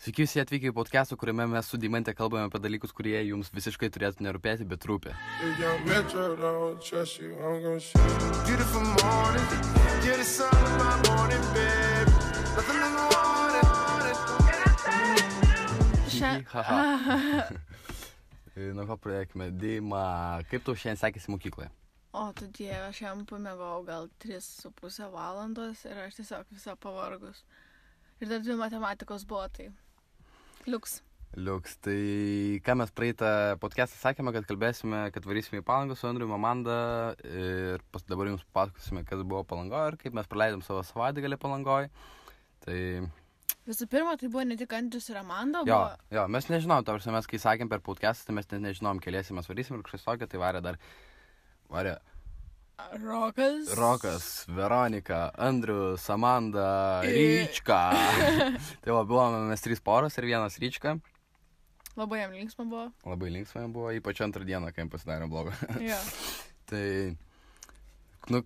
Sveiki visi atvykę į podcastą, kuriame mes su Deimante kalbame apie dalykus, kurie jums visiškai turėtų nerūpėti, bet rūpi. Nuo ko pradėkime. Deima, kaip tau šiandien sekėsi mokykloje? O, tu dieve, aš jam pamėgau gal 3,5 valandos ir aš tiesiog visą pavargus. Ir dar 2 matematikos buvo, tai liuks. Tai ką mes praeitą podcastą sakėme, kad kalbėsime, kad varysime į Palangą su Andriu Amanda ir dabar jums pasakosime, kas buvo Palangoje ir kaip mes praleidom savo savaitgalį Palangoje. Tai... Visų pirma, tai buvo ne tik Andrius ir Amanda, Jo, mes nežinom, tarsi mes kai sakėm per podcastą, tai mes nežinom, keliesi mes varysim ir kažkas tokio, tai varė Rokas, Veronika, Andrius, Amanda, Ryčka. Tai buvome mes 3 poros ir 1 Ryčka. Labai jam linksma buvo. Labai linksma buvo, ypač antrą dieną, kai jam pasidarė blogo. Jo. Tai,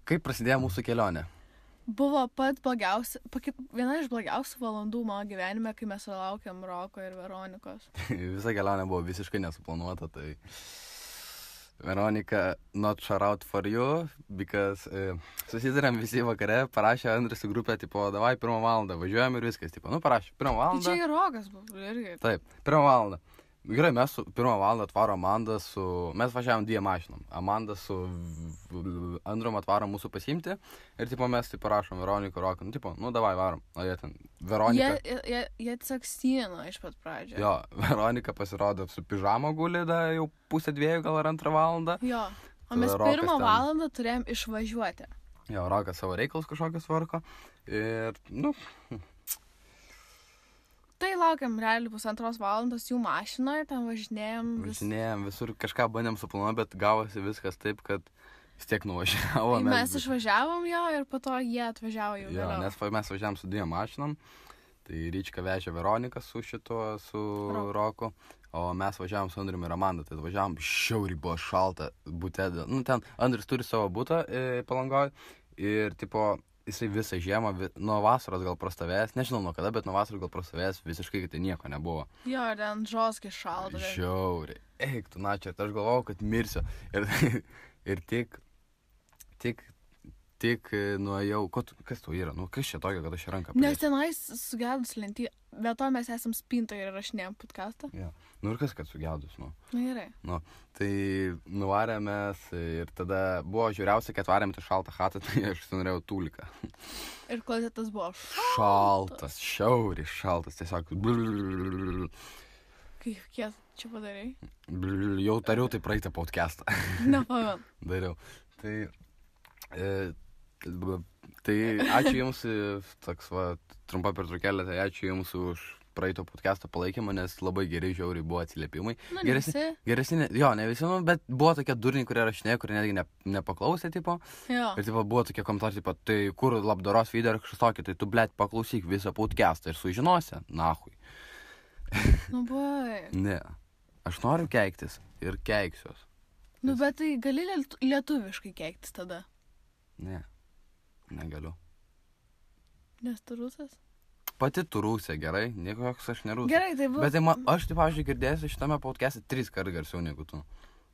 kaip prasidėjo mūsų kelionė? Buvo viena iš blogiausių valandų mano gyvenime, kai mes laukiam Roko ir Veronikos. Visa kelionė buvo visiškai nesuplanuota, tai... Veronika, not shout out for you, because susidarėm visi vakare, parašė Andrius į grupę, tipo, davai 1 valandą, važiuojam ir viskas, tipo, parašė 1 valandą. Tai čia ir Rokas buvo, irgi. Taip, 1 valandą. Gerai, mes su 1 valandą atvaro Amanda mes važiavom 2 mašinom. Amanda su Andrium atvaro mūsų pasiimti ir, tipo, mes, tipo, parašom Veroniką, Roką, davai, varom. O jie ten, Veronika... Jie tiesiog stino iš pat pradžio. Jo, Veronika pasirodo su pižamo guli, jau 1:30 gal ar 2 valandą. Jo, o mes 1 valandą turėjom išvažiuoti. Jo, Rokas savo reikalus kažkokius tvarko ir, Tai laukiam realiai 1,5 valandos jų mašinoje, ten važinėjom visur, kažką bandėm suplanuoti, bet gavosi viskas taip, kad vis tiek nuvažiavo. Mes išvažiavom jo ir po to jie atvažiavo jau vėliau. Nes mes važiavom su 2 mašinom, tai Ryčka vežė Veroniką su Roku, o mes važiavom su Andriumi ir Amanda, tai važiavom šiauriai buvo šalta bute. Ten Andrius turi savo butą Palangoje ir, tipo, jisai visą žiemą, nuo vasaros gal prastovėjęs, nežinau nuo kada, bet nuo vasaros gal prastovėjęs visiškai, kad tai nieko nebuvo. Jo, ten žoskai šalta. Žiauriai. Eik, tu načia, aš galvojau, kad mirsiu. Ir tik nuėjau, kas tu yra, kas čia tokio, kad aš ranką pridėsiu? Nes tenais sugedus lentį, bet to mes esam spintoje ir rašinėjom podcastą. Ja. Ir kas, kad sugedus, Gerai. Tai nuvarėmės ir tada buvo žiūriausia, kad varėm tą šaltą chatą, tai aš norėjau tūliką. Ir klozetas buvo šaltas, šiauriai šaltas, tiesiog. Kiek čia padarai? Jau tariau tai praeitą podcastą. Nepamenu. Dariau. Tai ačiū Jums, toks trumpa pertraukėlė, tai ačiū Jums už praeito podcast'o palaikymą, nes labai geri žiauriai buvo atsiliepimai. Geresni, ne visi, bet buvo tokie durniai, kurie rašinėjo, kurie netgi nepaklausė, tipo. Jo. Ir buvo tokie komentarai, tipo, tai kur labdaros video ar kažkas tokio, tai tu, blet, paklausyk visą podcast'ą ir sužinosi, nahui. Bai. Ne, aš noriu keiktis ir keiksiuos. Bet tai gali lietuviškai keiktis tada? Ne, negaliu. Nes tu rusas? Pati tu rusė, gerai, niekoks aš nerusas. Gerai, tai buvo. Bet aš, taip, pavyzdžiui, girdėsiu šitame podcast'e 3 kartų garsiau negu tu.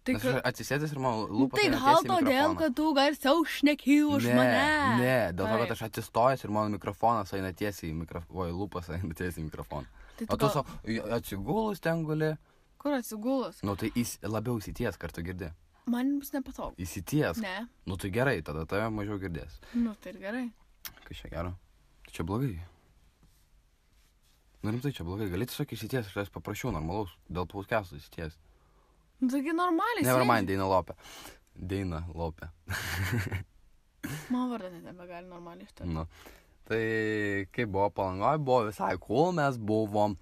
Nes aš atsisėdęs ir man lūpas tai gal todėl, kad tu garsiau šneki už mane. Ne, dėl to, kad aš atsistojęs ir mano mikrofonas eina tiesiai į mikrofoną. Lūpas eina tiesiai į mikrofoną. O tu atsigulus ten guli. Kur atsigulus? Tai labiau įsities, kartu girdi. Man bus nepatogu. Įsities? Ne. Tai gerai, tada tave mažiau girdės. Tai ir gerai. Kas čia gero? Tai čia blogai. Rimtai čia blogai. Gali tiesiog įsities, aš tavęs paprašiau normalaus, dėl podcast'o įsities. Taigi normaliai. Nevermind, Deina Lopė. Mano vardą net nebegali normaliai ištart. Tai kaip buvo Palangoje, buvo visai cool, mes buvom.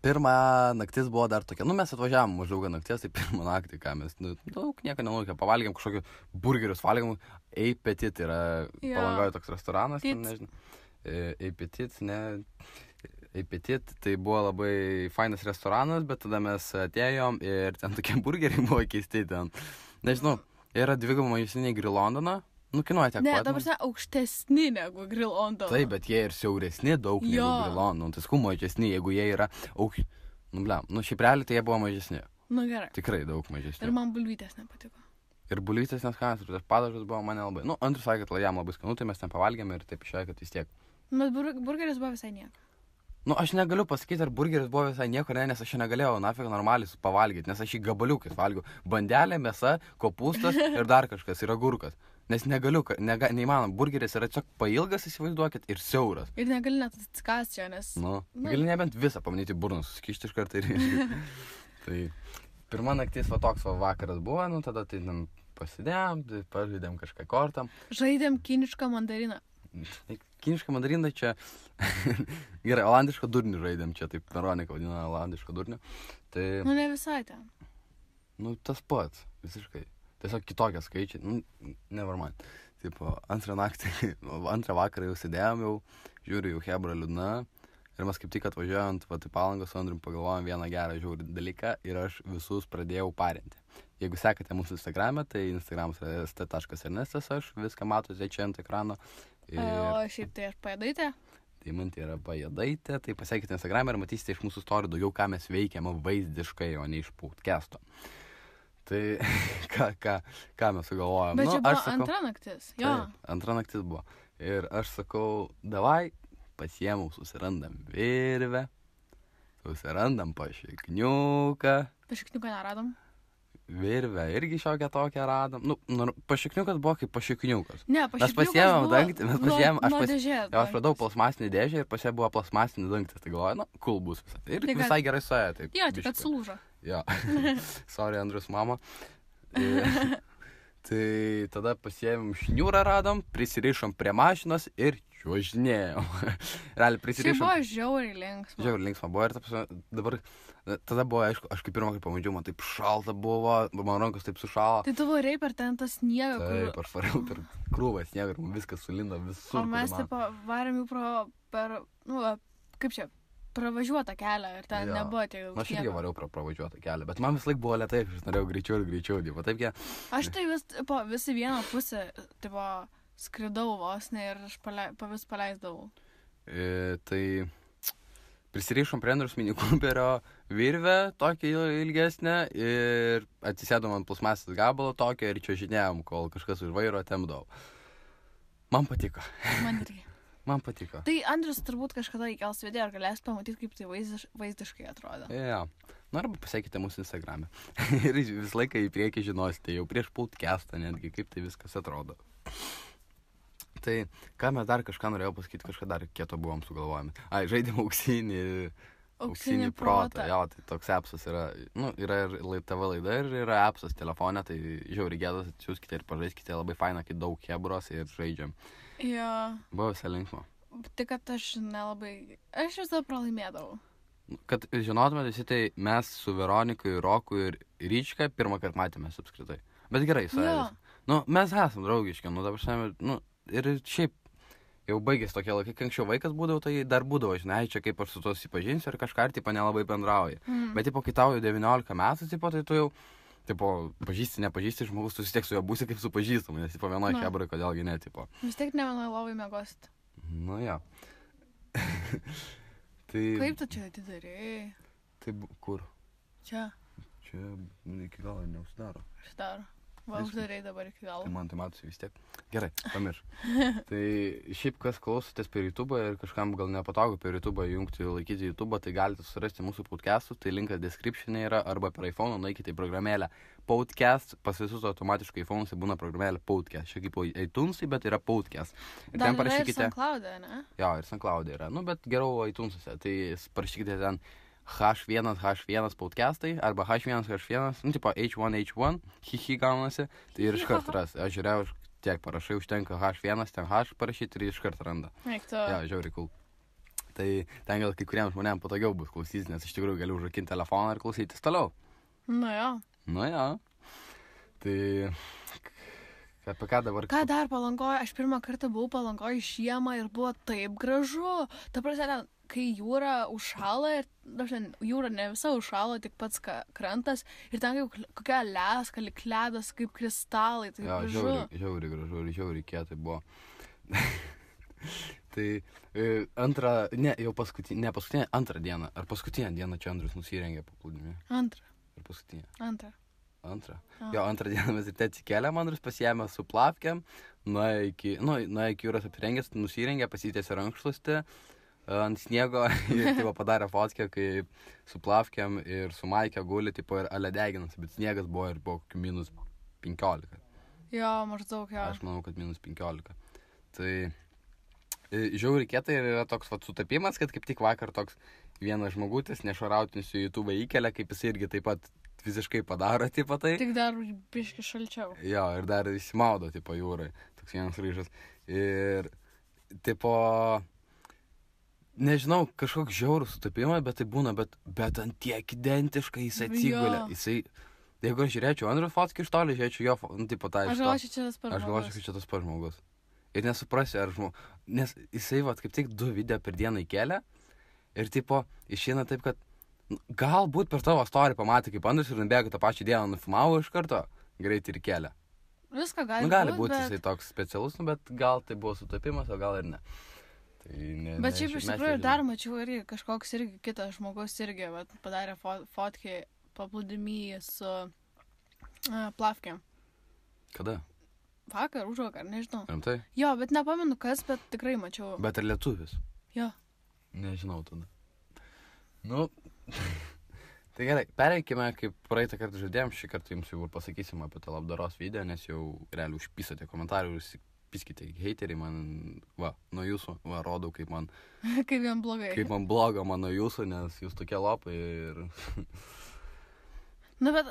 Pirmą naktis buvo dar tokia, mes atvažiavom maždaug nakties, tai pirmą naktį, ką mes, daug nieko nenulaukė, pavalgėm kažkokiu burgerius, valgėm, Eipetit yra Palangoje toks restoranas, nežinau, Eipetit, tai buvo labai fainas restoranas, bet tada mes atėjom ir ten tokie burgeriai buvo keisti ten, nežinau, yra 2 maistiniai Grill Londoną, Nu, kainuoja tiek Ne, pat. dabar aukštesni negu Grill on the... Taip, bet jie ir siauresni daug negu Jo. Grill on. Nu, tai skų mažesni, jeigu jie yra Nu, blem, nu, šiaip realiai tai jie buvo mažesni. Nu, gerai. Tikrai daug mažesni. Ir man bulvytės nepatiko. Ir bulvytės neskanas, ir tas padažas buvo mane labai. Nu, Andrius sakė, kad jam labai skanu, tai mes ten pavalgėme ir taip išėjo, kad vis tiek. Bet burgeris buvo visai nieko. Nu, aš negaliu pasakyti, ar burgeris buvo visai nieko, ne, nes aš čia negalėjau nafik normaliai pavalgyti, nes aš jį gabaliukais valgiau. Bandelė, mėsa, kopūstas ir dar kažkas, ir agurkas. Nes negaliu, neįmanom, burgeris yra tiesiog pailgas, įsivaizduokit, ir siauras. Ir negali net atsikąsti čia, nes... Nu, gali nebent visą pamanyti burną, susikišti iš karto ir... Tai pirma naktis va toks va vakaras buvo, nu tada tai pasidėjom, tai pažaidėm kažką kortam. Žaidėm kinišką mandariną. Kinišką mandariną čia... Gerai, olandišką durnį žaidėm čia, taip Veronika vadina olandišką durnį. Tai... Nu, ne visai ten. Nu, tas pats, visiškai. Tiesiog kitokie skaičiai, nu, never mind. Taip, antrą vakarą jau sėdėjom, jau žiūriu, jau hebra liūdna. Ir mes kaip tik atvažiuojant į Palangą su Andrium pagalvojom vieną gerą žiaurį dalyką ir aš visus pradėjau parinti. Jeigu sekate mūsų Instagram'e, tai Instagramas yra st.ernestas, aš viską matote čia ant ekrano. Ir... O šiaip tai aš pajadaitė? Tai man tai yra pajadaitė, tai pasiekite Instagram'e ir matysite iš mūsų story daugiau, ką mes veikiam vaizdiškai, o ne iš podcast'o. Tai ką mes sugalvojom? Bet nu, čia buvo sakau, antra naktis, jo. Taip, antra naktis buvo. Ir aš sakau, davai, pasiėmau, susirandam virvę, susirandam pašikniuką. Pašikniuką neradom? Virvę irgi šiokią tokią radom. Nu, pašikniukas buvo kaip pašikniukas. Ne, Mes pašikniukas pasiėmėm buvo dangtį, mes pasiėmėm, nuo dėžės. aš radau plasmasinį dėžę ir pasie buvo plasmasinį dangtį. Tai galvoju, nu, cool bus visą. Ir Tai kad- visai gerai suėjo. Taip, Jo, tik kad biškį. sulūžo. Jo. Sorry, Andrius mama. Tai tada pasiėmėm šniūrą radom, prisirišom prie mašinos ir čiuožinėjom. Realiai Šiaip prisirišom. buvo žiauriai linksma. Žiauriai linksma buvo ir dabar, tada buvo, aišku, aš kaip pirmą kartą pamačiau, man taip šalta buvo, man rankos taip sušalo. Tai tu varei per ten tą sniegą, Taip, aš variau per krūvą sniegą ir man viskas sulindo visur. O mes kur taip varėm jau per, nu, kaip čia, pravažiuotą kelią ir ten Jo. nebuvo tiek Na, daug aš irgi sniego. variau pravažiuotą kelią, bet man vis laik buvo lėtai, aš norėjau greičiau ir greičiau, tipo, taip jie. Aš tai visi vieną pusę, tipo, skridau vos ne ir aš vis paleisdavau. Tai prisirišom prie Andrius Mini Cooperio virvę, tokią ilgesnę, ir atsisėdom ant plasmasės gabalo tokio ir čiuožinėjom, kol kažkas už vairo temdavo. Man patiko. Man irgi. Man patiko. Tai Andrius turbūt kažkada įkels video ir galės pamatyti, kaip tai vaizdiškai atrodo. Jo. Nu, arba pasiekite mūsų Instagram'e. Ir visą laiką į priekį žinosite, jau prieš podcastą netgi, kaip tai viskas atrodo. Tai, ką mes dar kažką norėjau pasakyti, kažką dar kieto buvom sugalvojami. Ai, žaidėm auksinį protą. Jo, tai toks appsas yra, nu, yra ir TV laida ir yra appsas telefone, tai žiauriai gėdas, atsiųskite ir pažaiskite, labai faina, kai daug hebros ir žaidžiam. Jo. Buvo visai linksma. Tik, kad aš nelabai, aš visą pralaimėdavau. Kad žinotumėte visi, tai mes su Veronika, Roku ir Ryčka pirmą kartą matėmės apskritai. Bet gerai, sąjūdis. Nu, mes esam draugiški, nu, dabar šiandien, nu, ir šiaip jau baigėsi tokie laikai, kai anksčiau vaikas būdavo, tai dar būdavo, žinai, čia kaip aš su to susipažinsiu ir kažką, tipo, nelabai bendrauji. Bet, tipo, kai tau jau 19 metų, tipo, tai tu jau, tipo, pažįsti, nepažįsti žmogus, tu vis tiek su juo būsi kaip su pažįstamu, nes, tipo, vienoje hebrai, kodėlgi ne, tipo. Vis tiek ne vienoje lovai mėgosit. Nu, jo. Tai... Kaip tu čia atidarėjai? Tai kur? Čia. Čia iki galo neužsidaro. Uždaro. Va, uždarėjai dabar iki galo. Tai man tai matosi vis tiek. Gerai, pamirš. Tai šiaip kas klausotės per YouTube ir kažkam gal nepatogu per YouTube jungti, laikyti YouTube, tai galite surasti mūsų podcastus, tai linkas description'e yra, arba per iPhone nueikite į programėlę podcast, pas visus automatiškai iPhone'uose būna programėlė podcast. Čia kaip iTunes'ai, bet yra podcast. Ir Dar ten parašykite. yra ir SoundCloud'e, ne? Jo, ir SoundCloud'e yra. Nu, bet geriau iTunes'uose. Tai parašykite ten H1 podcastai arba H1, nu, tipo H1, hihi gaunasi, tai ir iškart ras. Aš žiūrėjau, tiek parašai, užtenka H1, ten H parašyti ir iškart randa. Eik tu. Jo, žiauriai cool. Tai ten gal kai kuriems žmonėms patogiau bus klausytis, nes iš tikrųjų galiu užrakinti telefoną ir klausytis toliau. Nu jo. Nu jo. Tai apie ką dabar? Ką dar Palangoje? Aš pirmą kartą buvau Palangoje žiemą ir buvo taip gražu. Ta prasme, kai jūra užšala ir, jūra ne visa užšala, tik pats krantas ir ten kaip kokia leska, lyg ledas, kaip kristalai, tai Jo, gražu. žiauriai gražu ir žiauriai kietai buvo. Tai antrą dieną, ar paskutinę dieną čia Andrius nusirengė paplūdimį. Antrą. Ar paskutinę? Antrą. Jo, antrą dieną mes ryte atsikėlėm, Andrius pasiėmė su plavkėm, nuėjo iki jūros apsirengęs, nusirengė, pasitėsi rankšluostį ant sniego ir tipo, padarė fotkę, kaip su plavkėm ir su maikė guli, tipo, ir aledeginas, bet sniegas buvo ir buvo minus 15. Jo, maždaug, jo. Aš manau, kad minus 15. Tai žiauriai kietai ir yra toks sutapimas, kad kaip tik vakar toks vienas žmogutis nešarautinis į YouTube įkelia, kaip jis irgi taip pat visiškai padaro, tipo tai. Tik dar biški šalčiau. Jo, ir dar įsimaudo, tipo, jūrai. Toks vienas ryžas. Ir, tipo, nežinau, kažkoks žiaurus sutapimas, bet tai būna, bet ant tiek identiškai jis atsigulė. Jisai, jeigu aš žiūrėčiau Andrius fotkį iš toli, žiūrėčiau jo, tipo, tą iš to. Aš galvočiau, čia tas pats žmogus. Aš galvočiau, kad čia tas pats žmogus. Ir nesuprasiu, ar žmogus. Nes jisai, kaip tik 2 video per dieną įkelia. Ir, tipo, išeina taip, kad galbūt per tavo storį pamatė, kaip Andrius ir nubėgo tą pačią dieną nufilmavo iš karto, greitai ir kelia. Viską gali gali būti jisai toks specialus, bet gal tai buvo sutapimas, o gal ir ne. Tai bet šiaip iš tikrųjų dar mačiau irgi kažkoks irgi kitas žmogus irgi padarė fotkį paplūdimy su plavkėm. Kada? Vakar, užvakar, nežinau. Rimtai? Jo, bet nepamenu kas, bet tikrai mačiau. Bet ir lietuvis? Jo. Nežinau tada. Nu, tai gerai, pereikime, kaip praeitą kartą žadėjom, šį kartą jums jau pasakysim apie tą labdaros video, nes jau realiai užpisote komentarų ir piskite heiteriai man, nuo jūsų, rodau, kaip man... kaip jam blogai. Kaip man bloga man nuo jūsų, nes jūs tokie lopai ir... Nu, bet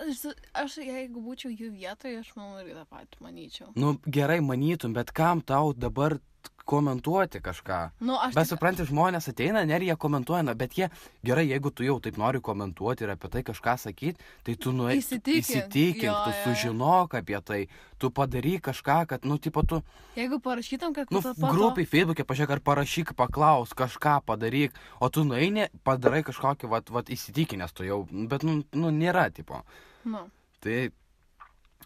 aš jeigu būčiau jų vietoje, aš manau irgi tą patį manyčiau. Nu, gerai manytum, bet kam tau dabar komentuoti kažką? Nu, bet supranti, žmonės ateina, ir jie komentuoja, bet jie, gerai, jeigu tu jau taip nori komentuoti ir apie tai kažką sakyti, tai tu įsitikink, tu sužinok apie tai, tu padaryk kažką, kad, nu, tipo, tu... Jeigu parašytum, kad... Nu, grupiai Facebook'e pažiūrėk, ar parašyk, paklaus, kažką padaryk, o tu nueini, padarai kažkokį, įsitikinęs tu jau, bet, nu, nėra, tipo. Nu. Tai,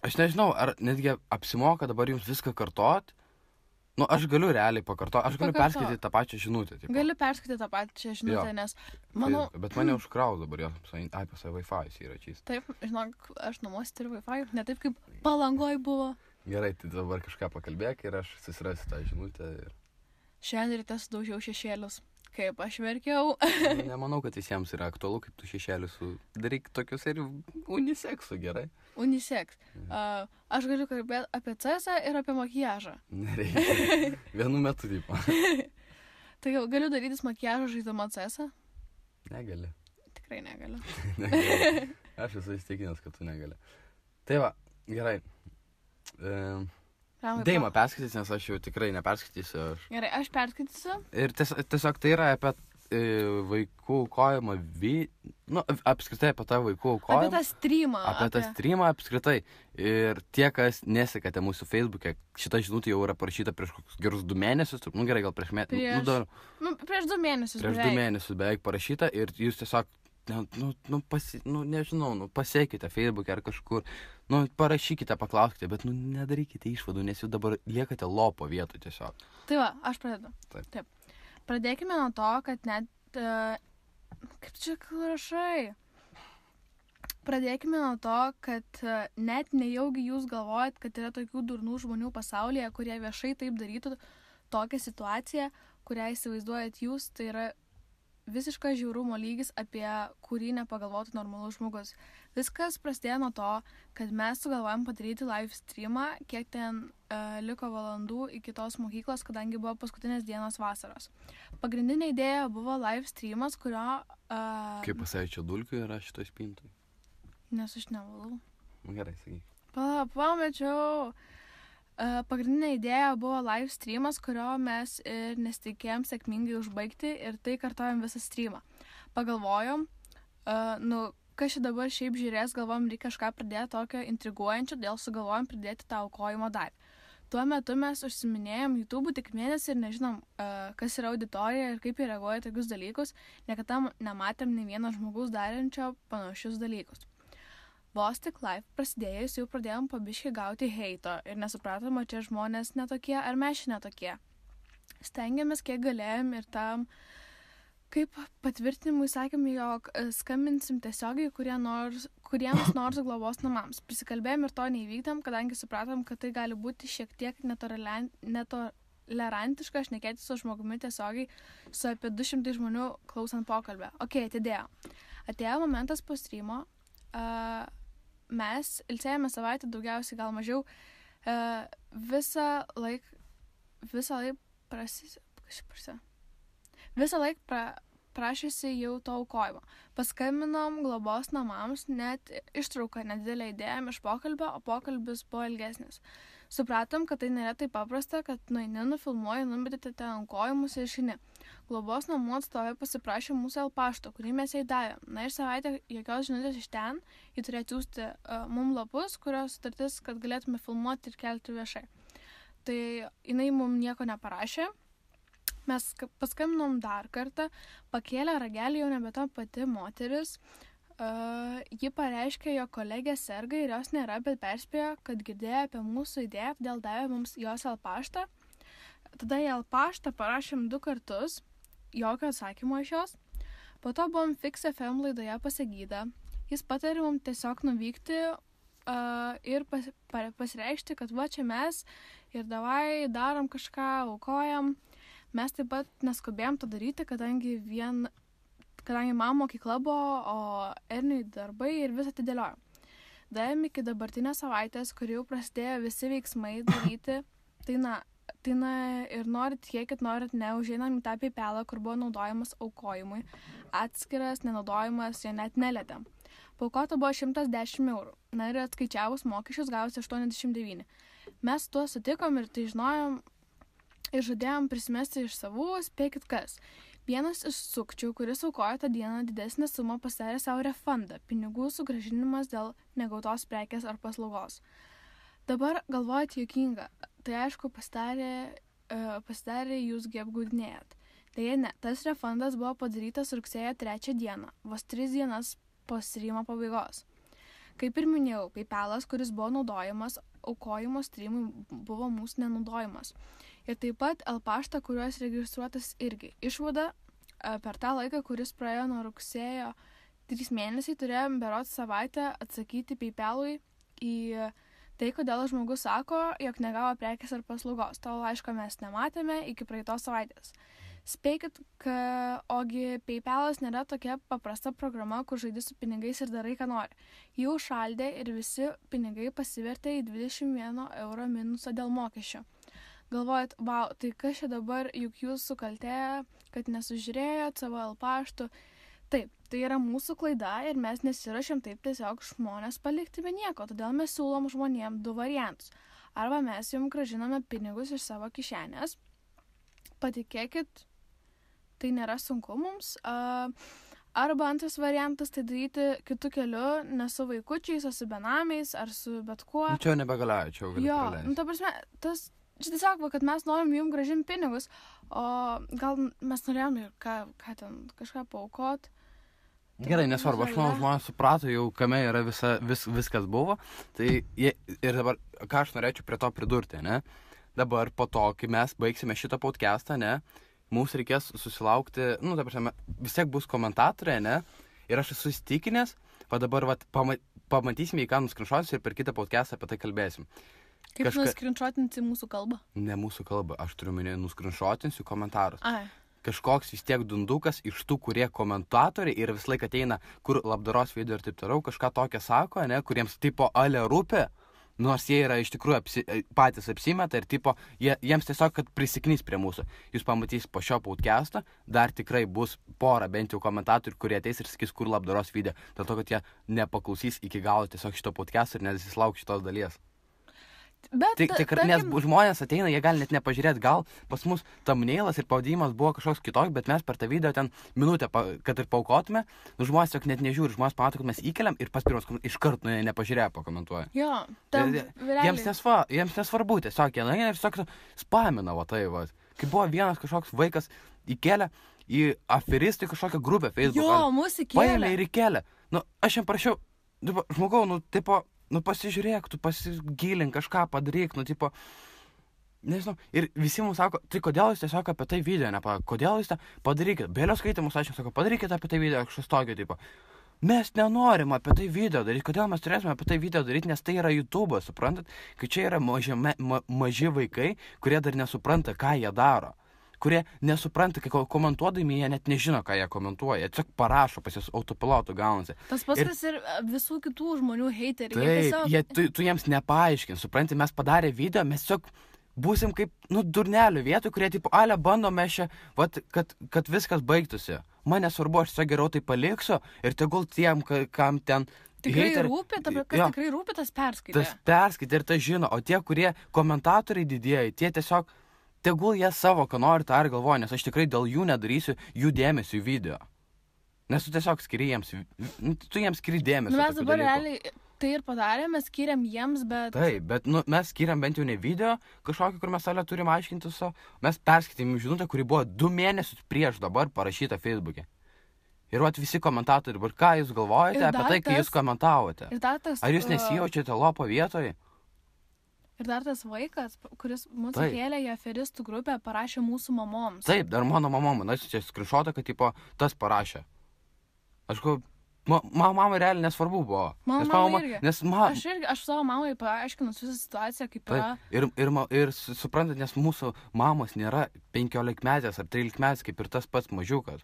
aš nežinau, ar netgi apsimoka dabar jums viską kartot. Nu, aš galiu realiai pakartoti, aš galiu perskaityti tą pačią žinutę. Tipo. Gali perskaityti tą pačią žinutę, nes, manau... Tai, bet mane užkraus dabar, pas Wi-Fi yra čys. Taip, žinok, aš namuose turiu Wi-Fi, ne taip kaip Palangoj buvo. Gerai, tai dabar kažką pakalbėk ir aš susirasiu tą žinutę. Ir... Šiandien ryte sudaužiau šešėlius. Kaip aš verkiau. Nemanau, kad visiems yra aktualu, kaip tu šešėlius daryk tokius ir uniseksų, gerai? Unisex. Aš galiu kalbėti apie CS ir apie makiažą. Nereikia. Vienu metu, tipo. Tai galiu darytis makiažą žaidama CS? Negali. Tikrai negaliu. Negali. Aš esu įstikinęs, kad tu negali. Tai va, gerai. Deima perskaitys, nes aš jau tikrai neperskaitysiu. Gerai, aš perskaitysiu. Ir tiesiog tai yra apie vaikų aukojimą, apskritai apie tą vaikų aukojimą. Apie tą streamą. Apie tą streamą apskritai. Ir tie, kas nesekate mūsų Facebook'e, šita žinutė jau yra parašyta prieš gerus 2 mėnesius. Nu gerai, gal prieš mėnesį. Prieš 2 mėnesius. Prieš 2 mėnesius beveik parašyta ir jūs tiesiog nežinau, pasiekite Facebook'e ar kažkur, parašykite, paklauskite, bet, nedarykite išvadų, nes jūs dabar liekate lopo vietų tiesiog. Tai va, aš pradedu. Taip. Pradėkime nuo to, kad net, kaip čia rašai, pradėkime nuo to, kad net nejaugi jūs galvojat, kad yra tokių durnų žmonių pasaulyje, kurie viešai taip darytų tokią situaciją, kurią įsivaizduojat jūs, tai yra visiškas žiaurumo lygis, apie kurį nepagalvotų normalus žmogus. Viskas prasidėjo nuo to, kad mes sugalvojom padaryti live streamą, kiek ten liko valandų iki tos mokyklos, kadangi buvo paskutinės dienos vasaros. Pagrindinė idėja buvo live streamas, kurio... Kaip pasaičio dulkių yra šitoj spintoj? Nes aš nevalau. Gerai, sakyk. Pamečiau. Pagrindinė idėja buvo live streamas, kurio mes ir nesitikėjom sėkmingai užbaigti ir tai kartojom visą streamą. Pagalvojom, kas čia dabar šiaip žiūrės, galvojom, reikia kažką pridėti tokio intriguojančio, dėl sugalvojom pridėti tą aukojimo dalį. Tuo metu mes užsiminėjom YouTube tik mėnesį ir nežinom, kas yra auditorija ir kaip jie reaguoja tokius dalykus, niekada nematėm nei vieno žmogaus darančio panašius dalykus. Vos tik live prasidėjus jau pradėjom pabiškai gauti heito ir nesupratom, ar čia žmonės netokie, ar mes čia netokie. Stengiamės kiek galėjom ir tam, kaip patvirtinimui sakėm, jog skambinsim tiesiogiai kuriems nors globos namams. Prisikalbėjom ir to neįvykdėm, kadangi supratom, kad tai gali būti šiek tiek netolerantiška šnekėti su žmogumi tiesiogiai su apie 200 žmonių klausant pokalbę. Ok, atėjo momentas po streamo, mes ilsėjome savaitę daugiausiai, gal mažiau, visą laik prašėsi jau to aukojimo. Paskambinom globos namams, net ištrauką nedidelę idėją iš pokalbio, o pokalbis buvo ilgesnis. Supratom, kad tai nėra taip paprasta, kad nueini, nufilmuoji, numetėte ten aukojimus ir išeini. Globos namų atstovai pasiprašė mūsų pašto, kurį mes jai davėm. Na ir savaitę jokios žinutės iš ten, jį turėjo atsiųsti mum lapus, kurios sutartis, kad galėtume filmuoti ir kelti viešai. Tai jinai mum nieko neparašė. Mes paskambinom dar kartą, pakėlė ragelį jau nebe ta pati moteris. Ji pareiškė, jo kolegė serga ir jos nėra, bet perspėjo, kad girdėjo apie mūsų idėją, todėl davė mums jos paštą. Tada į paštą parašėm 2 kartus, jokio atsakymo iš jos. Po to buvom Fix FM laidoje Pasagyda. Jis patarė mums tiesiog nuvykti ir pasireikšti, kad va čia mes ir davai darom kažką, aukojam. Mes taip pat neskubėjom to daryti, kadangi man mokykla buvo, o Erniui darbai ir visą atidėliojom. Davėm iki dabartinės savaitės, kur jau prasidėjo visi veiksmai daryti, tai ir norit tikėkit, norit ne, užeinam į tą PayPalą, kur buvo naudojamas aukojimui. Atskiras, nenaudojimas, jo net nelietėm. Paaukota buvo 110 eurų. Na ir atskaičiavus mokesčius gavosi 89. Mes tuo sutikom ir tai žinojom, ir žadėjom prisimesti iš savų, spėkit kas. Vienas iš sukčių, kuris aukojo tą dieną didesnę sumą, pasidarė savo refundą, pinigų sugrąžinimas dėl negautos prekės ar paslaugos. Dabar galvojat juokinga, tai aišku pasidarė jūsgi apgaudinėjat. Deja ne, tas refundas buvo padarytas rugsėjo 3 dieną, vos 3 dienas po streamo pabaigos. Kaip ir minėjau, PayPalas, kuris buvo naudojamas, aukojimo streamui buvo mūsų nenaudojimas. Ir taip pat paštą, kuriuos registruotas irgi. Išvada, per tą laiką, kuris praėjo nuo rugsėjo 3 mėnesiai, turėjom berods savaitę atsakyti PayPalui į tai, kodėl žmogus sako, jog negavo prekės ar paslaugos. To laiško mes nematėme iki praeitos savaitės. Spėkit, ogi PayPalas nėra tokia paprasta programa, kur žaidi su pinigais ir darai, ką nori. Jau šaldė ir visi pinigai pasivertė į 21 euro minusą dėl mokesčio. Galvojat, wow, tai kas čia dabar, juk jūs sukaltėję, kad nesužiūrėjot savo paštų. Taip, tai yra mūsų klaida ir mes nesirašėm taip tiesiog žmonės palikti be nieko, todėl mes siūlom žmonėm 2 variantus. Arba mes jums grąžiname pinigus iš savo kišenės. Patikėkit, tai nėra sunku mums. Arba antras variantas tai daryti kitų kelių, ne su vaikučiais, o su benamiais ar su bet kuo. Čia nebegalioja, čia jau gali praleisti. Ta prasme, čia tiesiog, kad mes norim jums grąžinti pinigus, o gal mes norėjom ir ką ten kažką paaukot. Gerai, nesvarbu, aš manau, žmonės suprato jau, kame yra viskas buvo. Tai ir dabar, ką aš norėčiau prie to pridurti, ne? Dabar po to, kai mes baigsime šitą podcastą, ne, mums reikės susilaukti, ta prasme, vis tiek bus komentatoriai, ne? Ir aš esu įsitikinęs, dabar pamatysime, į ką nuskrinšuotis ir per kitą podcastą apie tai kalbėsim. Kaip nuskrinšuotinti mūsų kalbą? Ne mūsų kalbą, aš turiu minėti nuskrinšuotinsiu komentarus. Ai. Kažkoks vis tiek dundukas iš tų, kurie komentatoriai ir vis laik ateina, kur labdaros video ir taip toliau, kažką tokią sako, ne, kuriems tipo ale rūpi, nors jie yra iš tikrųjų patys apsimeta ir tipo, jiems tiesiog, kad prisiknys prie mūsų. Jūs pamatys po šio podcast'o, dar tikrai bus pora bent jau komentatorių, kurie ateis ir sakys, kur labdaros video, dėl to, kad jie nepaklausys iki galo tiesiog šito podcast'o ir nesislauks šitos dalies. Bet, Nes žmonės ateina, jie gali net nepažiūrėti, gal pas mus thumbnailas ir pavadinimas buvo kažkoks kitoks, bet mes per tą video ten minutę, kad ir paukotume, žmonės tiesiog net nežiūri, žmonės pamato, kad mes įkeliam ir pas pirmas iškart nepažiūrėję pakomentuoja. Jo, jiems nesvarbu, tiesiog jie nueina ir tiesiog spamina, va tai, va. Kai buvo vienas kažkoks vaikas įkelė į aferistai kažkokią grupę Facebook. Jo, mūsų įkelė. Paėmė ir įkelė. Nu, aš jam prašiau, žmogau, pasižiūrėk, tu pasigilink, kažką padaryk, nežinau. Ir visi mums sako, tai kodėl jūs tiesiog apie tai video kodėl jūs tą padarykit? Bėlio skaitimus, aš jums sako, padarykit apie tai video, kažkas tokio, mes nenorim apie tai video daryti, kodėl mes turėsime apie tai video daryti, nes tai yra YouTube'as, suprantat? Kai čia yra maži vaikai, kurie dar nesupranta, ką jie daro. Kurie nesupranta, kai komentuodami, jie net nežino, ką jie komentuoja. Jie tiesiog parašo, pas jas autopilotų gaunasi. Tas paskas ir visų kitų žmonių heiteriai. Taip, tu jiems nepaaiškin, supranti, mes padarė video, mes tiesiog būsim kaip, durnelių vietoj, kurie, bandom mes čia, kad viskas baigtųsi. Man nesvarbu, aš tiesiog geriau tai paliksiu ir tegul tiem, kam ten... Tikrai rūpi, tikrai rūpi, tas perskaitė. Tas perskaitė ir tas žino, o tie, kurie komentatoriai didieji, tie tiesiog... Tegul jie savo, ką nori, tą ir galvoja, nes aš tikrai dėl jų nedarysiu jų dėmesio į video. Nes tu tiesiog skiri jiems, tu jiems skiri dėmesio. Mes dabar realiai tai ir padarėme, skiriam jiems, bet... Taip, bet mes skiriam bent jau ne video kažkokį, kur mes salę turim aiškinti savo. Mes perskaitėm žinutę, kuri buvo 2 mėnesius prieš dabar parašyta Facebook'e. Ir visi komentatoriai, dabar ką jūs galvojate apie tai, kai jūs komentavote? Ar jūs nesijaučiate lopo vietoje? Ir dar tas vaikas, kuris mūsų kėlė į aferistų grupę, parašė mūsų mamoms. Taip, dar mano mamom, čia skrinšotą, kad tas parašė. Aš mamai realiai nesvarbu buvo. Mama irgi. Aš savo mamai paaiškinus visą situaciją, kaip yra. Ir suprantat, nes mūsų mamos nėra 15-metės ar 13-metės, kaip ir tas pats mažiukas.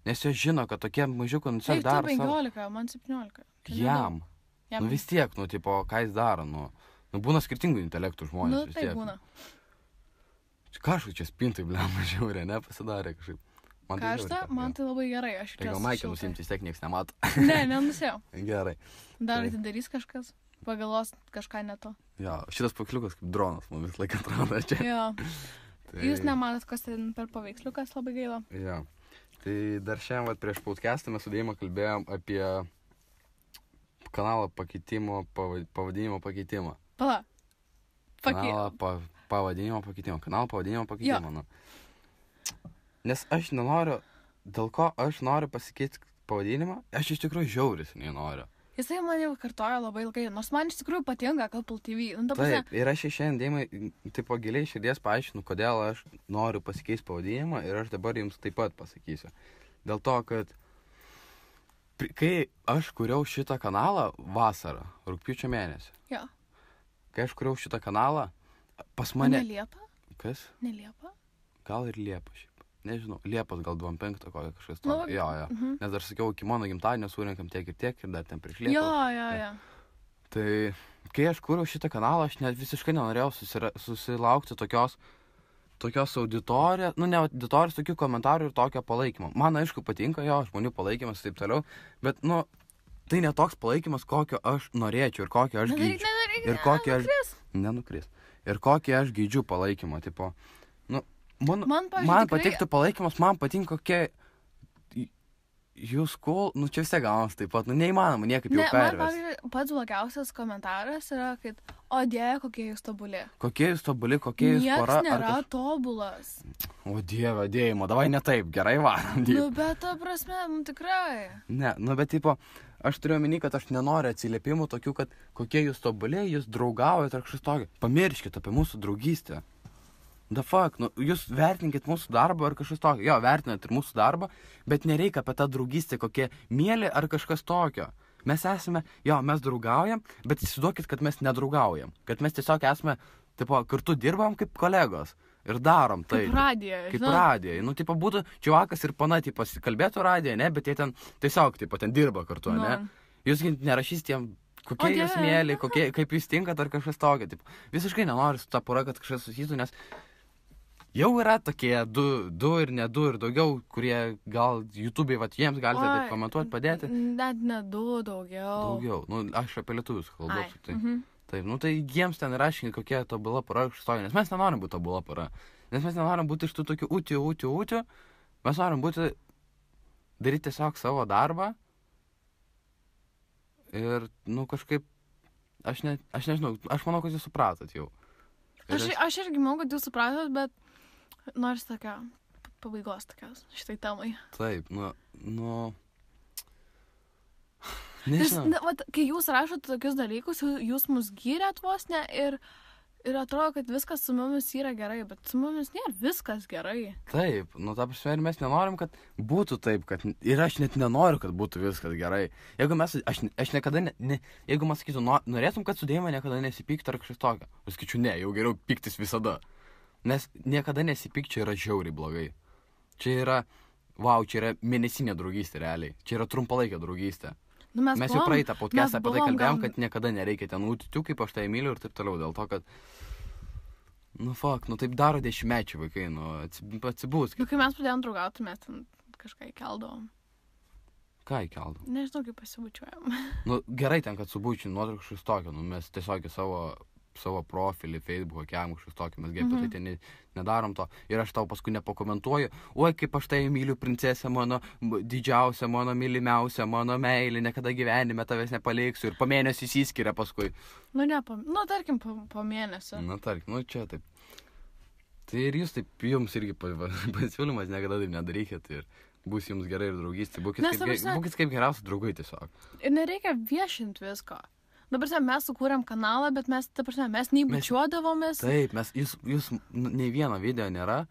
Nes jos žino, kad tokie mažiukai tiesiog daro savo. Taip, 15, man 17. Jam. Vis tiek, ką jis daro, būna skirtingų intelektų žmonės. Tai būna. Kažkaip čia spintai, blema, žiaurė, nepasidarė kažkaip. Karšta, man tai labai gerai. Gal Maikė nusimti, vis tiek nieks nemato. Ne, nenusėjau. Gerai. Dar atidarys kažkas, pagalos kažką ne to. Jo, šitas pakliukas kaip dronas, man vis laiką atrodo čia. Jo. Jūs nematot, kas ten per paveiksliukas, labai gaila. Jo. Tai dar šiandien prieš podcastą mes su Deima kalbėjom apie kanalo pakeitimo, pavadinimo pakeitimą. Kanalo pavadinimo pakeitimą. Nes aš nenoriu, dėl ko aš noriu pasikeisti pavadinimą, aš iš tikrųjų žiauris nenoriu. Jisai man jau kartojo labai ilgai, nors man iš tikrųjų patinka Couple TV. Taip, ir aš šiandien Deimai, giliai širdies paaiškinu, kodėl aš noriu pasikeisti pavadinimą ir aš dabar jums taip pat pasakysiu. Dėl to, kad kai aš kuriau šitą kanalą vasarą, rugpjūčio mėnesį. Jo. Kai aš kuriau šitą kanalą, pas mane... Ne Liepa? Kas? Ne Liepa? Gal ir Liepa šiaip. Nežinau, Liepas gal 25 kokią kažkas to. Jo. Nes dar sakiau, iki mano gimtadienio surinkam tiek ir dar ten prieš Liepą. Jo. Tai kai aš kuriau šitą kanalą, aš net visiškai nenorėjau susilaukti tokios auditorijos, ne auditorijos, tokių komentarų ir tokio palaikymo. Man aišku patinka jo, žmonių palaikymas ir taip toliau, bet tai ne toks palaikymas, kokio aš norėčiau ir kokio aš geidžiu. Nenukris. Ir kokį aš geidžiu palaikymą, tipo, man patiktų palaikymas, man patinka kokie jūs cool, čia vis tiek gaunas taip pat, neįmanoma niekaip jau pervesti. Man pats blogiausias komentaras yra, kad, o Dieve, kokie jūs tobuli. Kokie jūs tobuli, kokie jūs pora. Niekas nėra tobulas. O Dieve, Deimo, davai ne taip, gerai varom. Bet ta prasme, tikrai. Ne, bet tipo, aš turiu omeny, kad aš nenoriu atsiliepimų tokių, kad kokie jūs tobuli, jūs draugaujate ar kažkas tokio. Pamirškit apie mūsų draugystę. The fuck, jūs vertinkit mūsų darbą ar kažkas tokio. Jo, vertinat ir mūsų darbą, bet nereikia apie tą draugystę kokie mėly ar kažkas tokio. Mes esame, mes draugaujam, bet įsivaizduokit, kad mes nedraugaujam. Kad mes tiesiog esame, kartu dirbam kaip kolegos ir darom tai. Kaip radijai. Kaip radijai. Būtų čiuvakas ir pana, kalbėtų radijai, ne, bet jie ten tiesiog, ten dirba kartu, ne. Jūs nerašys tiem, kokie jūs mėly, kaip jūs tinkat ar kažkas tokio. Visiškai nenoriu su ta pora, kad kažkas susitų, nes jau yra tokie du ir ne du ir daugiau, kurie gal YouTube'ai, jiems galite taip komentuoti, padėti. Net ne du, daugiau. Daugiau. Aš apie lietuvius kalbu. Taip, nu tai jiems ten raškini, kokia tobula pora išstoja, nes mes nenorim būti tobula pora. Nes mes nenorim būti iš tų tokių ūtių. Mes norim būti, daryti tiesiog savo darbą. Ir, nu, kažkaip, aš nežinau, aš manau, kad jūs supratot jau. Aš irgi manau, kad jūs supratot, bet nors tokia pabaigos tokios šitai temai. Taip, nu... Nežinau. Vat, kai jūs rašote tokius dalykus, jūs mus gyrėt vos ne ir atrodo, kad viskas su mumis yra gerai, bet su mumis nėra viskas gerai. Taip, nu ta prasme, ir mes nenorim, kad būtų taip, kad ir aš net nenoriu, kad būtų viskas gerai. Jeigu mes, aš niekada, jeigu man sakytų, norėtum, kad su Deima niekada nesipyktų ar kažkas tokio, aš sakyčiau, ne, jau geriau pyktis visada. Nes niekada nesipykčia yra žiauriai blogai. Čia yra, čia yra mėnesinė draugystė realiai, čia yra trumpalaikė draugystė. Nu, mes jau praeitą podcastą apie tai kalbėjom, kad niekada nereikia ten ūtių, kaip aš tai myliu ir taip toliau, dėl to, kad, taip daro 10-mečiai vaikai, atsibūs. Kai mes pradėjom draugauti, mes ten kažką įkeldavom. Ką įkeldavom? Nežinau, kaip pasibučiuojam. Gerai ten, kad subučiu nuotraukšus tokio, mes tiesiog savo profilį, Facebook'o, kiam kažkas tokio, mes apie tai ten nedarom to. Ir aš tau paskui nepakomentuoju, oi, kaip aš tai myliu princesę mano, didžiausią mano, mylimiausią mano meilį, niekada gyvenime tavęs nepaliksiu ir po mėnesio įsiskiria paskui. Tarkim, po mėnesio. Tarkim, čia taip. Tai ir jūs taip, jums irgi pasiūlymas, niekada taip nedarykit ir bus jums gerai ir draugystė, būkit kaip geriausi draugai tiesiog. Ir nereikia viešinti visko. Dabar mes sukūrėm kanalą, bet mes nei bučiuodavomės. Taip, jūs nei vieno video nėra,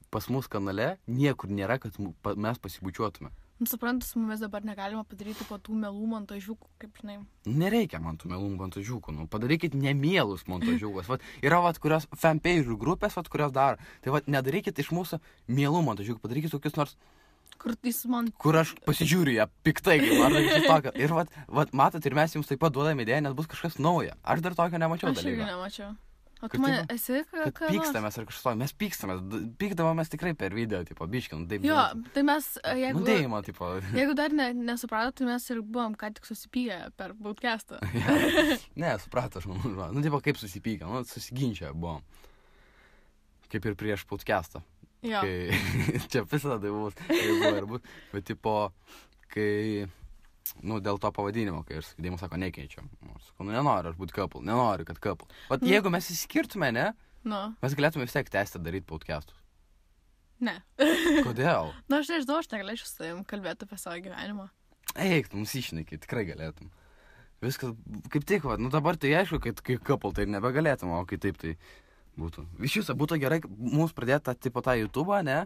pas mus kanale niekur nėra, kad mes pasibučiuotume. Suprantu, su mumis dabar negalima padaryti po tų melų montažiukų, kaip žinai. Nereikia man tų melų montažiukų, padarykit nemielus montažiukus. Yra, kurios fanpage grupės, kurios daro. Tai, nedarykit iš mūsų mielų montažiukų, padarykit tokius nors... Kur aš pasižiūriu ją piktai, ar kažkas tokio. Ir matot, ir mes jums taip pat duodame idėją, nes bus kažkas nauja. Aš dar tokio nemačiau dalyko. Aš irgi nemačiau. O tu man esi kad pykstamės ar kažkas tokio. Mes pykstamės. Pykdavomės tikrai per video, biškin. Jo, tai mes, jeigu... Nudėjimo, Jeigu dar nesupratot, tai mes ir buvom ką tik susipykę per podcastą. Ne, suprato, aš manau. Kaip susipykę, susiginčia buvom. Kaip ir prieš podcastą. Jo. Čia visada tai bus, bet kai, dėl to pavadinimo, kai aš Deimas sako, nekeičiam. Sakau, nenoriu aš būti couple, nenoriu, kad couple. Jeigu mes įskirtume, ne, mes galėtume vis tiek tęsti daryti podcastus. Ne. Kodėl? Aš nežinau, aš negalėčiau su tavim kalbėti apie savo gyvenimą. Eik, mums išneki, tikrai galėtum. Viskas, kaip tik, dabar tai aišku, kad kai couple tai nebegalėtum, o kai taip tai... būtų. Iš jūsų būtų gerai mums pradėti tą YouTube'ą, ne?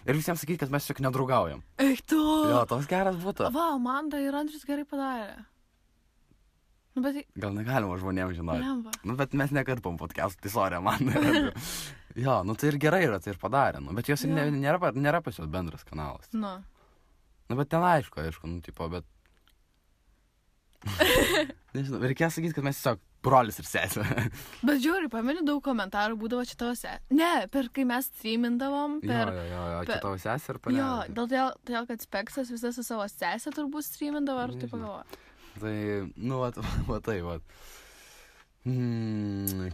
Ir visiems sakyti, kad mes tiesiog nedraugaujam. Eik tu! Jo, toks geras būtų. Amanda ir Andrius gerai padarė. Gal negalima žmonėms žinoti. Lemba. Bet mes nekarpom podcastų, tai sorry, Amanda ir Andrius. Jo, tai ir gerai yra, tai ir padarė. Bet jos ir nėra pas jos bendras kanalas. Bet ten aišku, bet... Nežinau, reikėjo sakyti, kad mes tiesiog brolis ir sesė. Bet žiūri, pameni, daug komentarų būdavo čia tavo sesė. Ne, kai mes streamindavom. Jo, čia tavo sesė ir panelė. Jo, dėl kad Speksas visą su savo sesė turbūt streamindavo, ar taip pagalvoja. Tai,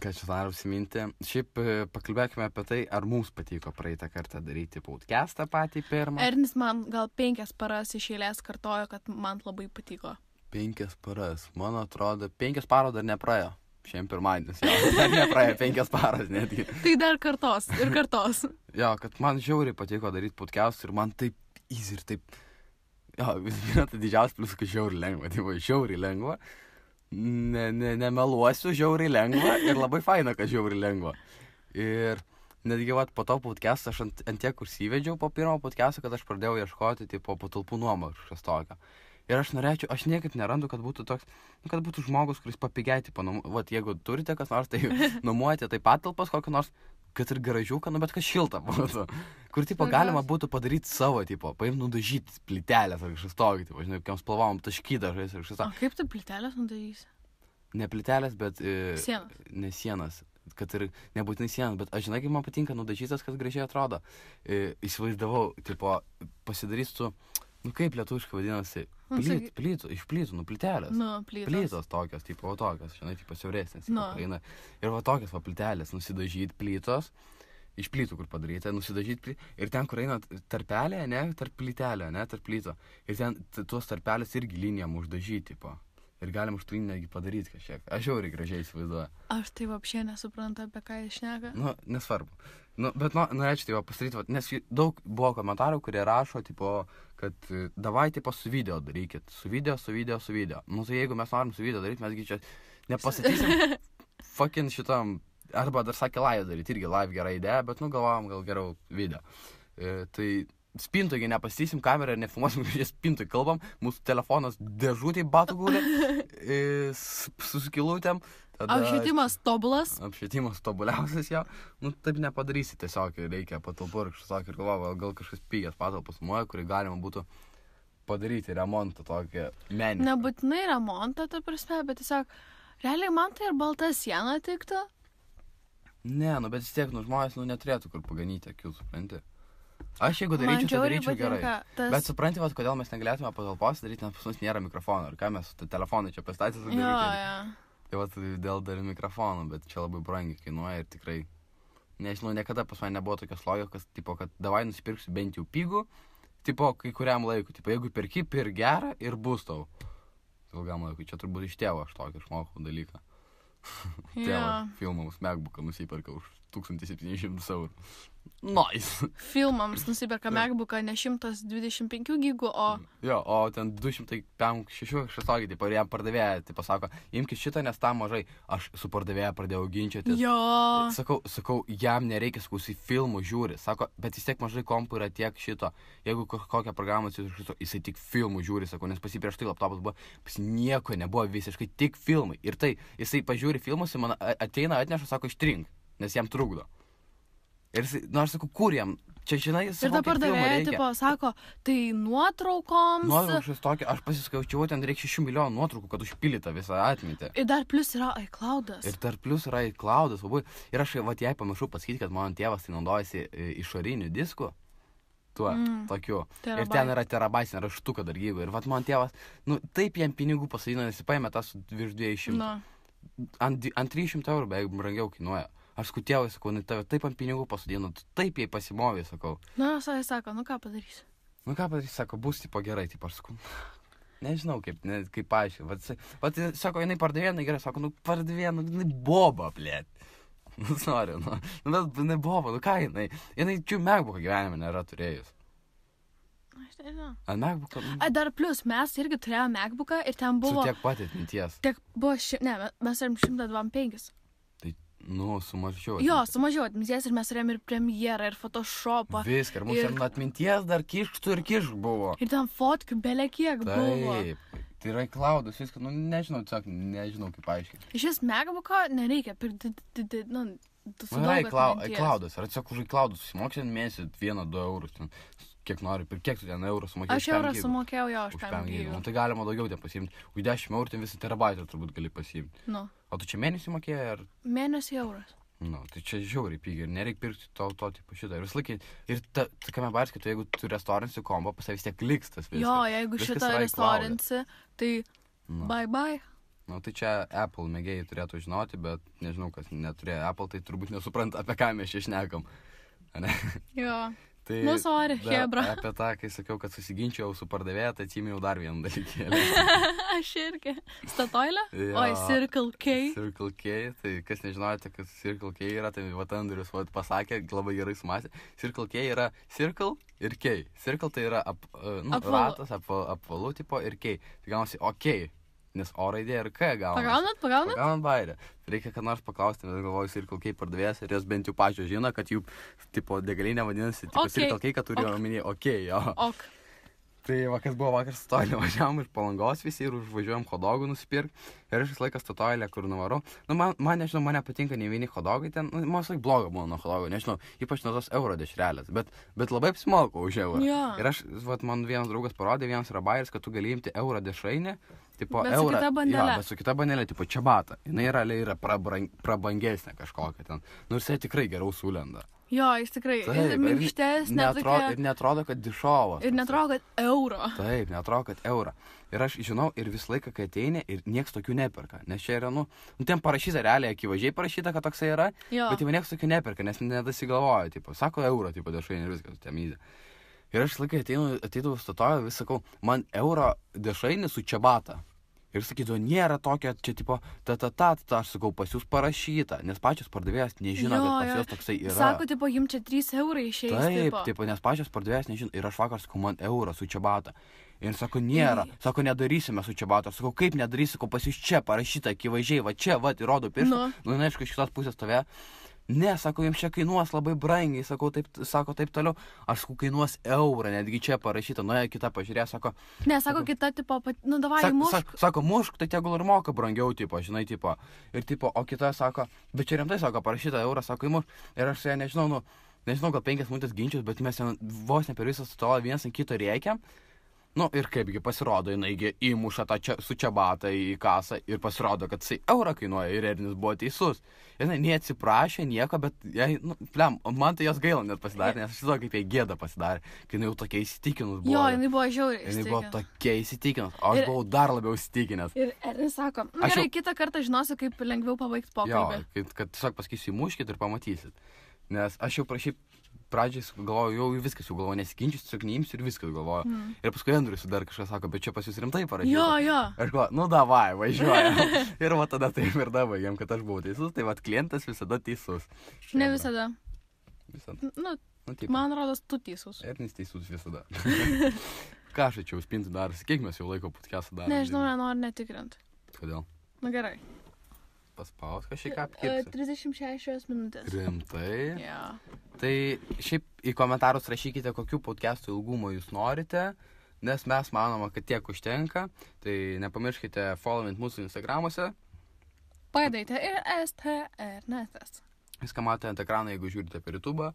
ką čia noriu užsiminti. Šiaip pakalbėkime apie tai, ar mums patiko praeitą kartą daryti podcastą patį pirmą. Ernis man gal 5 paras iš eilės kartojo, kad man labai patiko. 5 paras. Man atrodo, 5 paros dar nepraėjo. Šiandien pirmadienis. Dar nepraėjo 5 paras netgi. Tai dar kartos ir kartos. Jo, kad man žiauriai patiko daryti podcast ir man taip easy ir taip... Jo, tai didžiausias plius, kad žiauriai lengva. Tai žiauriai lengva. Nemeluosiu, žiauriai lengva. Ir labai faina, kad žiauriai lengva. Ir netgi po to podcast'ą aš ant tiek užsivedžiau po pirmo podcast'o, kad aš pradėjau ieškoti po patalpų nuomą kažkas tokio. Ir aš niekaip nerandu, kad būtų toks, kad būtų žmogus, kuris papigiai, jeigu turite kas nors, tai nuomojate tai patalpas kokią nors, kad ir garažiuką, bet kas šilta būtų. Kur, galima būtų padaryti savo, paimti nudažyti plytelės ar kažkas tokio, žinai, kokiam spalvom taškydažais ar kažkas tokio. O kaip tu plytelės nudažysi? Ne plytelės, bet... Sienas. Ne sienas. Kad ir nebūtinai sienas, bet aš žinai, kaip man patinka nudažytas, kas gražiai atrodo. Įsivaizdavau, pasidarysiu Nu kaip lietuviškai vadinasi? Iš plytų, nu plytelės. Nu, plytos. Plytos tokios, tipo, tokios, žinai, tipo siauresnės. Nu. Ir va tokios va plytelės, nusidažyti plytos, iš plytų, kur padaryti, nusidažyti plytos. Ir ten, kur eina tarpelė, ne, tarp plytelė, ne, tarp plyto. Ir ten tuos tarpelės irgi linijam uždažyti, tipo. Ir galim už tai netgi padaryti kažkiek. Aš jau ir gražiai įsivaizduoju. Aš tai vapšė nesuprantu, apie ką jis šneka. Nu, nesvarbu. Nu, bet norėčiau tai pastaryti, nes daug buvo komentarų, kurie rašo, tipo, kad davai, tipo, su video darykit. Su video. Nu, tai jeigu mes norim su video daryti, mesgi čia nepasakysim fucking šitam, arba dar sakė live daryti, irgi live gera idėja, bet, nu, galvojam gal geriau video. Tai spintogi nepasakysim kamerą ir nefilmuosim, kad spintoj kalbam, mūsų telefonas dėžutėj batų guli, su skilutėm. Apšvietimas tobulas. Apšvietimas tobuliausias jau. Nu, taip nepadarysi, tiesiog reikia patalpų ir kažkas ir galvoju, gal kažkas pigias patalpas nuoja, kurį galima būtų padaryti remontą tokį menį. Nebūtinai remontą, ta prasme, bet tiesiog, realiai man tai ir balta siena tiktų. Ne, nu, bet vis tiek, nu, žmonės, nu, neturėtų kur paganyti akių, supranti. Aš jeigu daryčiau, tai daryčiau gerai. Bet supranti, vat, kodėl mes negalėtume patalpos daryti, nes pas mus nėra mikrofono. Ir ką mes su telefonai čia pastatys daryti. Jo. Tai vat, dėl dar mikrofonų, bet čia labai brangiai kainuoja ir tikrai, nežinau, niekada pas mane nebuvo tokios logikos, tipo, kad davai nusipirksiu bent jau pigų, tipo, kai kuriam laikui, tipo, jeigu perki, pirk gerą ir bus tau. Ilgam laikui, čia turbūt iš tėvo aš tokį išmokau dalyką. Tėvas filmams MacBooką nusiperka už 1700 eurų. Nice. Filmams nusiperka MacBooką ne 125 gigų, o... Jo, o ten 256 kažkas, tipo, ir jam pardavėja, tipo, sako, imkis šitą, nes tam mažai. Aš su pardavėja pradėjau ginčytis. Jo. Sakau, jam nereikia, sakau, filmų žiūri. Sako, bet vis tiek mažai kompų yra tiek šito. Jeigu kokią programą jisai tik filmų žiūri, sakau, nes pas jį prieš tai laptopas buvo, pas jį nieko nebuvo, visiškai tik filmai. Ir tai, jisai pažiūri filmus, man ateina, atneša, sako, ištrink, nes jam trukdo. Ir aš sakau, kur jam? Čia, žinai, jis ir ta pardavėja, tipo, sako, tai nuotraukoms. Nuotraukos tokia, aš pasiskaičiau, ten reikia 6 milijonų nuotraukų, kad užpildyta visą atmintį. Ir dar plus yra iCloudas. Ir aš, vat, jai pamiršau pasakyti, kad mano tėvas tai naudojasi išoriniu disku. Tuo, tokiu. Terabai. Ir ten yra terabaitinė raštuka dar gyva. Ir vat, man tėvas, nu, taip jam pinigų pasadino, nes jis paėmė tą su virš 200. Nu. Ant 300 eurų beveik brangiau kainuoja. Aš sakau, tėvai, sakau, tave taip ant pinigų pasadino, tu taip jai pasimovė, sakau. Na, jis sako, nu ką padarysi? Sako, bus tipo gerai, tipo, aš sakau, nežinau kaip paaiškinti. Vat, sako, jinai pardavė, jinai gerai, sako, nu pardavė, nu, jinai boba, blėt. Nu, sorry, nu, bet jinai boba, nu ką jinai čia MacBooką gyvenime nėra turėjus. Aš nežinau. Ant MacBooką? Dar plus, mes irgi turėjome MacBooką ir ten buvo... Su tiek pat atminties. Tiek buvo, mes turim 125. Nu, sumažiau. Jo, sumažiau atminties ir mes turėjom ir premjerą, ir Photoshopą. Viską, ir mūsų atminties dar kišktų ir kišk buvo. Ir ten fotkių belia kiek buvo. Taip, tai yra iCloudas, viską, nu, nežinau, tiesiog nežinau kaip aiškiai. Iš vis MacBooką nereikia pirkti, nu, su daug atminties. iCloudas, ar tiesiog už iCloudas susimoksi mėnesį 1-2 eurus, ten, kiek nori, per kiek tu ten eurų sumokėjai? Aš eurą sumokėjau jo, už 5 gigų. Nu, tai galima daugiau ten pasiimti. Už 10 eurų ten visą terabaitą turbūt gali pasiimti. Nu. O tu čia mėnesį mokėjai ar? Mėnesį euras. Nu, tai čia žiauriai pigiai ir nereikia pirkti to tipo šitą. Ir vis laikai, ir kame baris, kad jeigu tu restauransi kombo, pas vis tiek liks tas viskas. Jo, jeigu šitą restauransi, tai bye. Nu, tai čia Apple mėgėjai turėtų žinoti, bet nežinau, kas neturėjo Apple, tai turbūt nesupranta, apie ką mes čia šnekam. Jo. Tai nu, sorry, hebra. Apie tą, kai sakiau, kad susiginčiau su pardavėja, tai atsiminiau dar vieną dalykėlį. Aš irgi. Statoilė? Jo, oi, Circle K. Circle K, tai kas nežinote, kas Circle K yra, tai vat Andrius pasakė, labai gerai sumasė. Circle K yra Circle ir K. Circle tai yra ratas, apvalų tipo ir K. Tai gaunasi OK. Nes O raidė ir K gaunasi. Pagaunat bairę. Reikia, kad nors paklausti, nes galvoju Circle K pardavėjas ir jos bent jau pačios žino, kad jų tipo degalinė vadinasi tipo Circle K, kad turi omenyje OK, jo. Ok. Tai kas buvo vakar Statoilė, važiavom iš Palangos visi ir užvažiuojam hodogų nusipirkti. Ir aš vis laiką Statoilė, kur nuvarau. Nu, man nežinau, man nepatinka nei vieni hodogai ten. Nu, man visai bloga buvo nuo hodogų, nežinau, ypač nuo tos euro dešrelės. Bet labai apsimokau už eurą. Ja. Ir aš, man vienas draugas parodė, vienas yra bairis, kad tu gali imti euro dešrainį. Tipo, bet su kita bandelė. Jo, bet su kita bandelė, tipo čiabata. Jinai yra prabangesnė kažkokia ten. Nu, jisai tikrai geriau sulenda. Jo, jis tikrai. Ir minkštesnė. Ir netrodo, kad dišovas. Ir netrodo, kad euro. Taip, netrodo, kad eurą. Ir aš žinau, ir visą laiką, kai ateini, ir nieks tokių neperka. Nes čia yra, ten parašyta realiai, akivaizdžiai parašyta, kad toksai yra, bet jau nieks tokių neperka, nes nedasigalvoja, tipo, sako eurą, tipo, dešrainį ir viskas, temydė. Ir aš laikai ateidavau statoju, vis sakau, man euro dešrainį su čiabata. Ir sakydavo, nėra tokio, čia tipo, aš sakau, pas jūs parašyta, nes pačios pardavėjas nežino, kad pas jūs toksai yra. Sako, tipo, jums čia 3 eurai išeis. Taip, tipo, nes pačios pardavėjas nežino. Ir aš vakar sakau, man eurą su čiabata. Ir sako, nėra. Sako, nedarysime su čiabata. Sakau, kaip nedarysi, sakau, pas jūs čia parašyta, akivaizdžiai, va čia, va, įrodo pirštą. Aišku, iš kitos pusės tave. Ne, sako, jums čia kainuos labai brangiai, sako taip toliau. Aš sakau, kainuos eurą, netgi čia parašyta, nuėjo kita pažiūrė, sako. Ne, sako, kita, tipo, davai mušk. Sako, mušk, tai tegul ir moka brangiau, tipo, žinai, tipo. Ir, tipo, o kita sako, bet čia rimtai, sako, parašyta eurą, sako, įmušk. Ir aš su ja nežinau, gal 5 minutės ginčius, bet mes vos ne per visą stolą vienas ant kito rėkiam. Ir kaipgi pasirodo, jinaigi įmuša tą su čiabata į kasą ir pasirodo, kad jisai eurą kainuoja ir Ernis buvo teisus. Jinai neatsiprašė nieko, bet man tai jos gaila net pasidarė, nes aš žinau, kaip jai gėda pasidarė, kai jinai jau tokia įsitikinus buvo. Jo, jinai buvo žiauriai įsitikinus. Jinai buvo tokia įsitikinus, o aš buvau dar labiau įsitikinęs. Ir Ernis sako, gerai, kitą kartą žinosiu, kaip lengviau pabaigti pokalbį. Jo, kad tiesiog pasakysiu, įmuškit ir pamatysit. Nes aš jau pradžiai galvoju, jau viskas, jau galvoju, nesiginčius, tiesiog neimsiu ir viskas galvoju. Ir paskui Andrius dar kažkas sako, bet čia pas jūs rimtai parašyta. Jo. Aš galvoju, davai, važiuojam. Ir va tada taip ir dabaigėm, kad aš buvau teisus, tai va klientas visada teisus. Ne visada. Visada. Man rodos, tu teisus. Ernis teisus visada. Ką aš čia užpinti daras, kiek mes jau laiko podcast'ą darom? Nežinau, nenoriu netikrinti. Kodėl? Gerai. Paspaus kažkiek apkirpsi. 36 minutės. Rimtai? Jo. Tai šiaip į komentarus rašykite, kokių podcastų ilgumo jūs norite, nes mes manome, kad tiek užtenka. Tai nepamirškite followint mūsų Instagramuose. Padaite ir STRNetas. Viską matote ant ekrano, jeigu žiūrite per YouTube.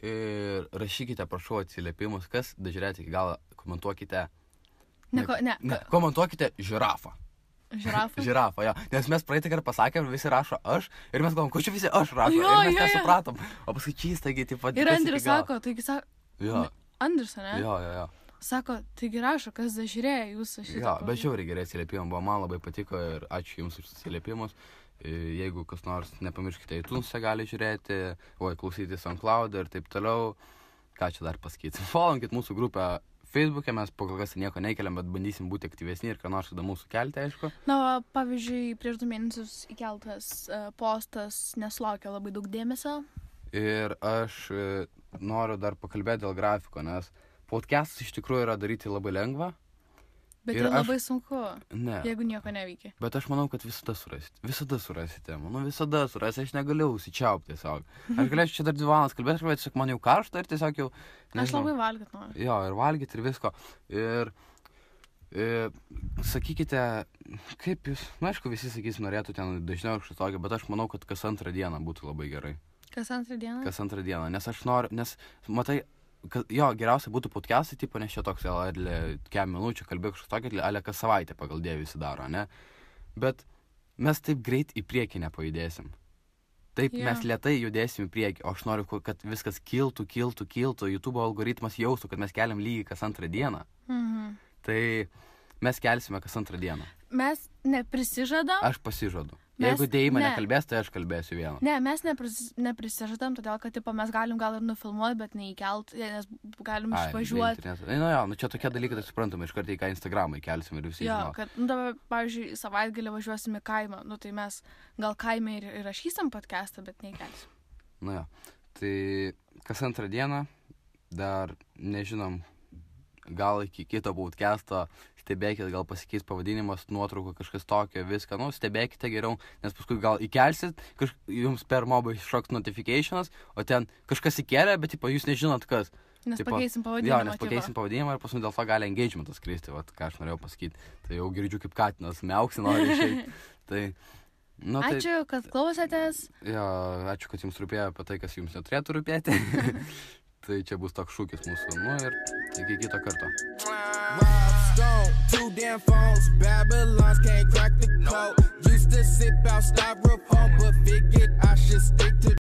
Ir rašykite, prašau, atsiliepimus, kas dažiūrėti iki galo, komentuokite. Komentuokite žirafą. Žirafą, jo. Nes mes praeitą kartą pasakėm, visi rašo aš, ir mes galvom, ko čia visi aš rašo, ir mes nesupratom. O paskui čystagi, taip pat. Ir Andrius sako, taigi sako. Jo. Andrius, ne? Jo. Sako, taigi rašo, kas dažiūrėjo jūsų šitą. Jo, bet žiauriai gerai atsiliepimai buvo, man labai patiko ir ačiū jums už atsiliepimus. Jeigu kas nors, nepamirškite, iTunes'e gali žiūrėti, klausyti SoundCloud ir taip toliau. Ką čia dar pasakyti? Followinkit mūsų grupę Facebook'e, mes po kol kas nieko nekeliam, bet bandysim būti aktyvesni ir ką nors įdomaus sukelti, aišku. Pavyzdžiui, prieš 2 mėnesius įkeltas postas nesulaukė labai daug dėmesio. Ir aš noriu dar pakalbėti dėl grafiko, nes podcastas iš tikrųjų yra daryti labai lengva. Bet ir labai sunku, jeigu nieko neveikia. Bet aš manau, kad visada surasite. Visada surasite, aš negaliu užsičiaupti tiesiog. Aš galėčiau čia dar 2 valandas kalbėti, bet tiesiog man jau karšta ir tiesiog jau... Aš labai valgyt noriu. Jo, ir valgyt ir visko. Ir sakykite, kaip jūs... Aišku, visi sakys, norėtų ten dažniau kažkas tokio, bet aš manau, kad kas 2 dieną būtų labai gerai. Kas 2 dieną? Kas 2 dieną, nes aš noriu, matai... Jo, geriausia būtų podcastai, tipo, nes čia toks, kem minučių kalbėk kažkas tokio, ale kas savaitę pagal Dievą visi daro, ne? Bet mes taip greit į priekį nepajudėsim. Taip, mes lėtai judėsim į priekį, o aš noriu, kad viskas kiltų, YouTube algoritmas jaustų, kad mes keliam lygiai kas 2 dieną. Tai mes kelsime kas 2 dieną. Mes neprisižadam? Aš pasižadu. Jeigu Deima nekalbės, tai aš kalbėsiu vieną. Ne, mes neprisižadam, todėl, kad gal ir nufilmuoti, bet neįkelt, nes galim išvažiuoti. Čia tokie dalykai, tai suprantame, iš karto į ką Instagramą įkelsim ir visi žino. Jo, kad, dabar, pavyzdžiui, savaitgalį važiuosim į kaimą, tai mes gal kaime ir rašysim podcastą, bet neįkelsim. Tai kas 2 dieną, dar nežinom, gal iki kito podcast'o stebėkite, gal pasikeis pavadinimas, nuotrauka, kažkas tokio, viską, stebėkite geriau, nes paskui gal įkelsit, jums per mobą iššoks notificationas, o ten kažkas įkelia, bet jūs nežinot kas. Nes pakeisim pavadinimą. Jo, nes pakeisim pavadinimą ir paskui dėl to gali engagementas kristi, ką aš norėjau pasakyti. Tai jau girdžiu, kaip katinas miauksi nori išeiti. Ačiū, kad klausėtės. Jo, ačiū, kad jums rūpėjo apie tai, kas jums neturėtų rūpėti. Tai čia bus toks šūkis mūsų, ir iki kito karto. Stone, 2 damn phones, Babylons can't crack the code. Used to sip out styrofoam.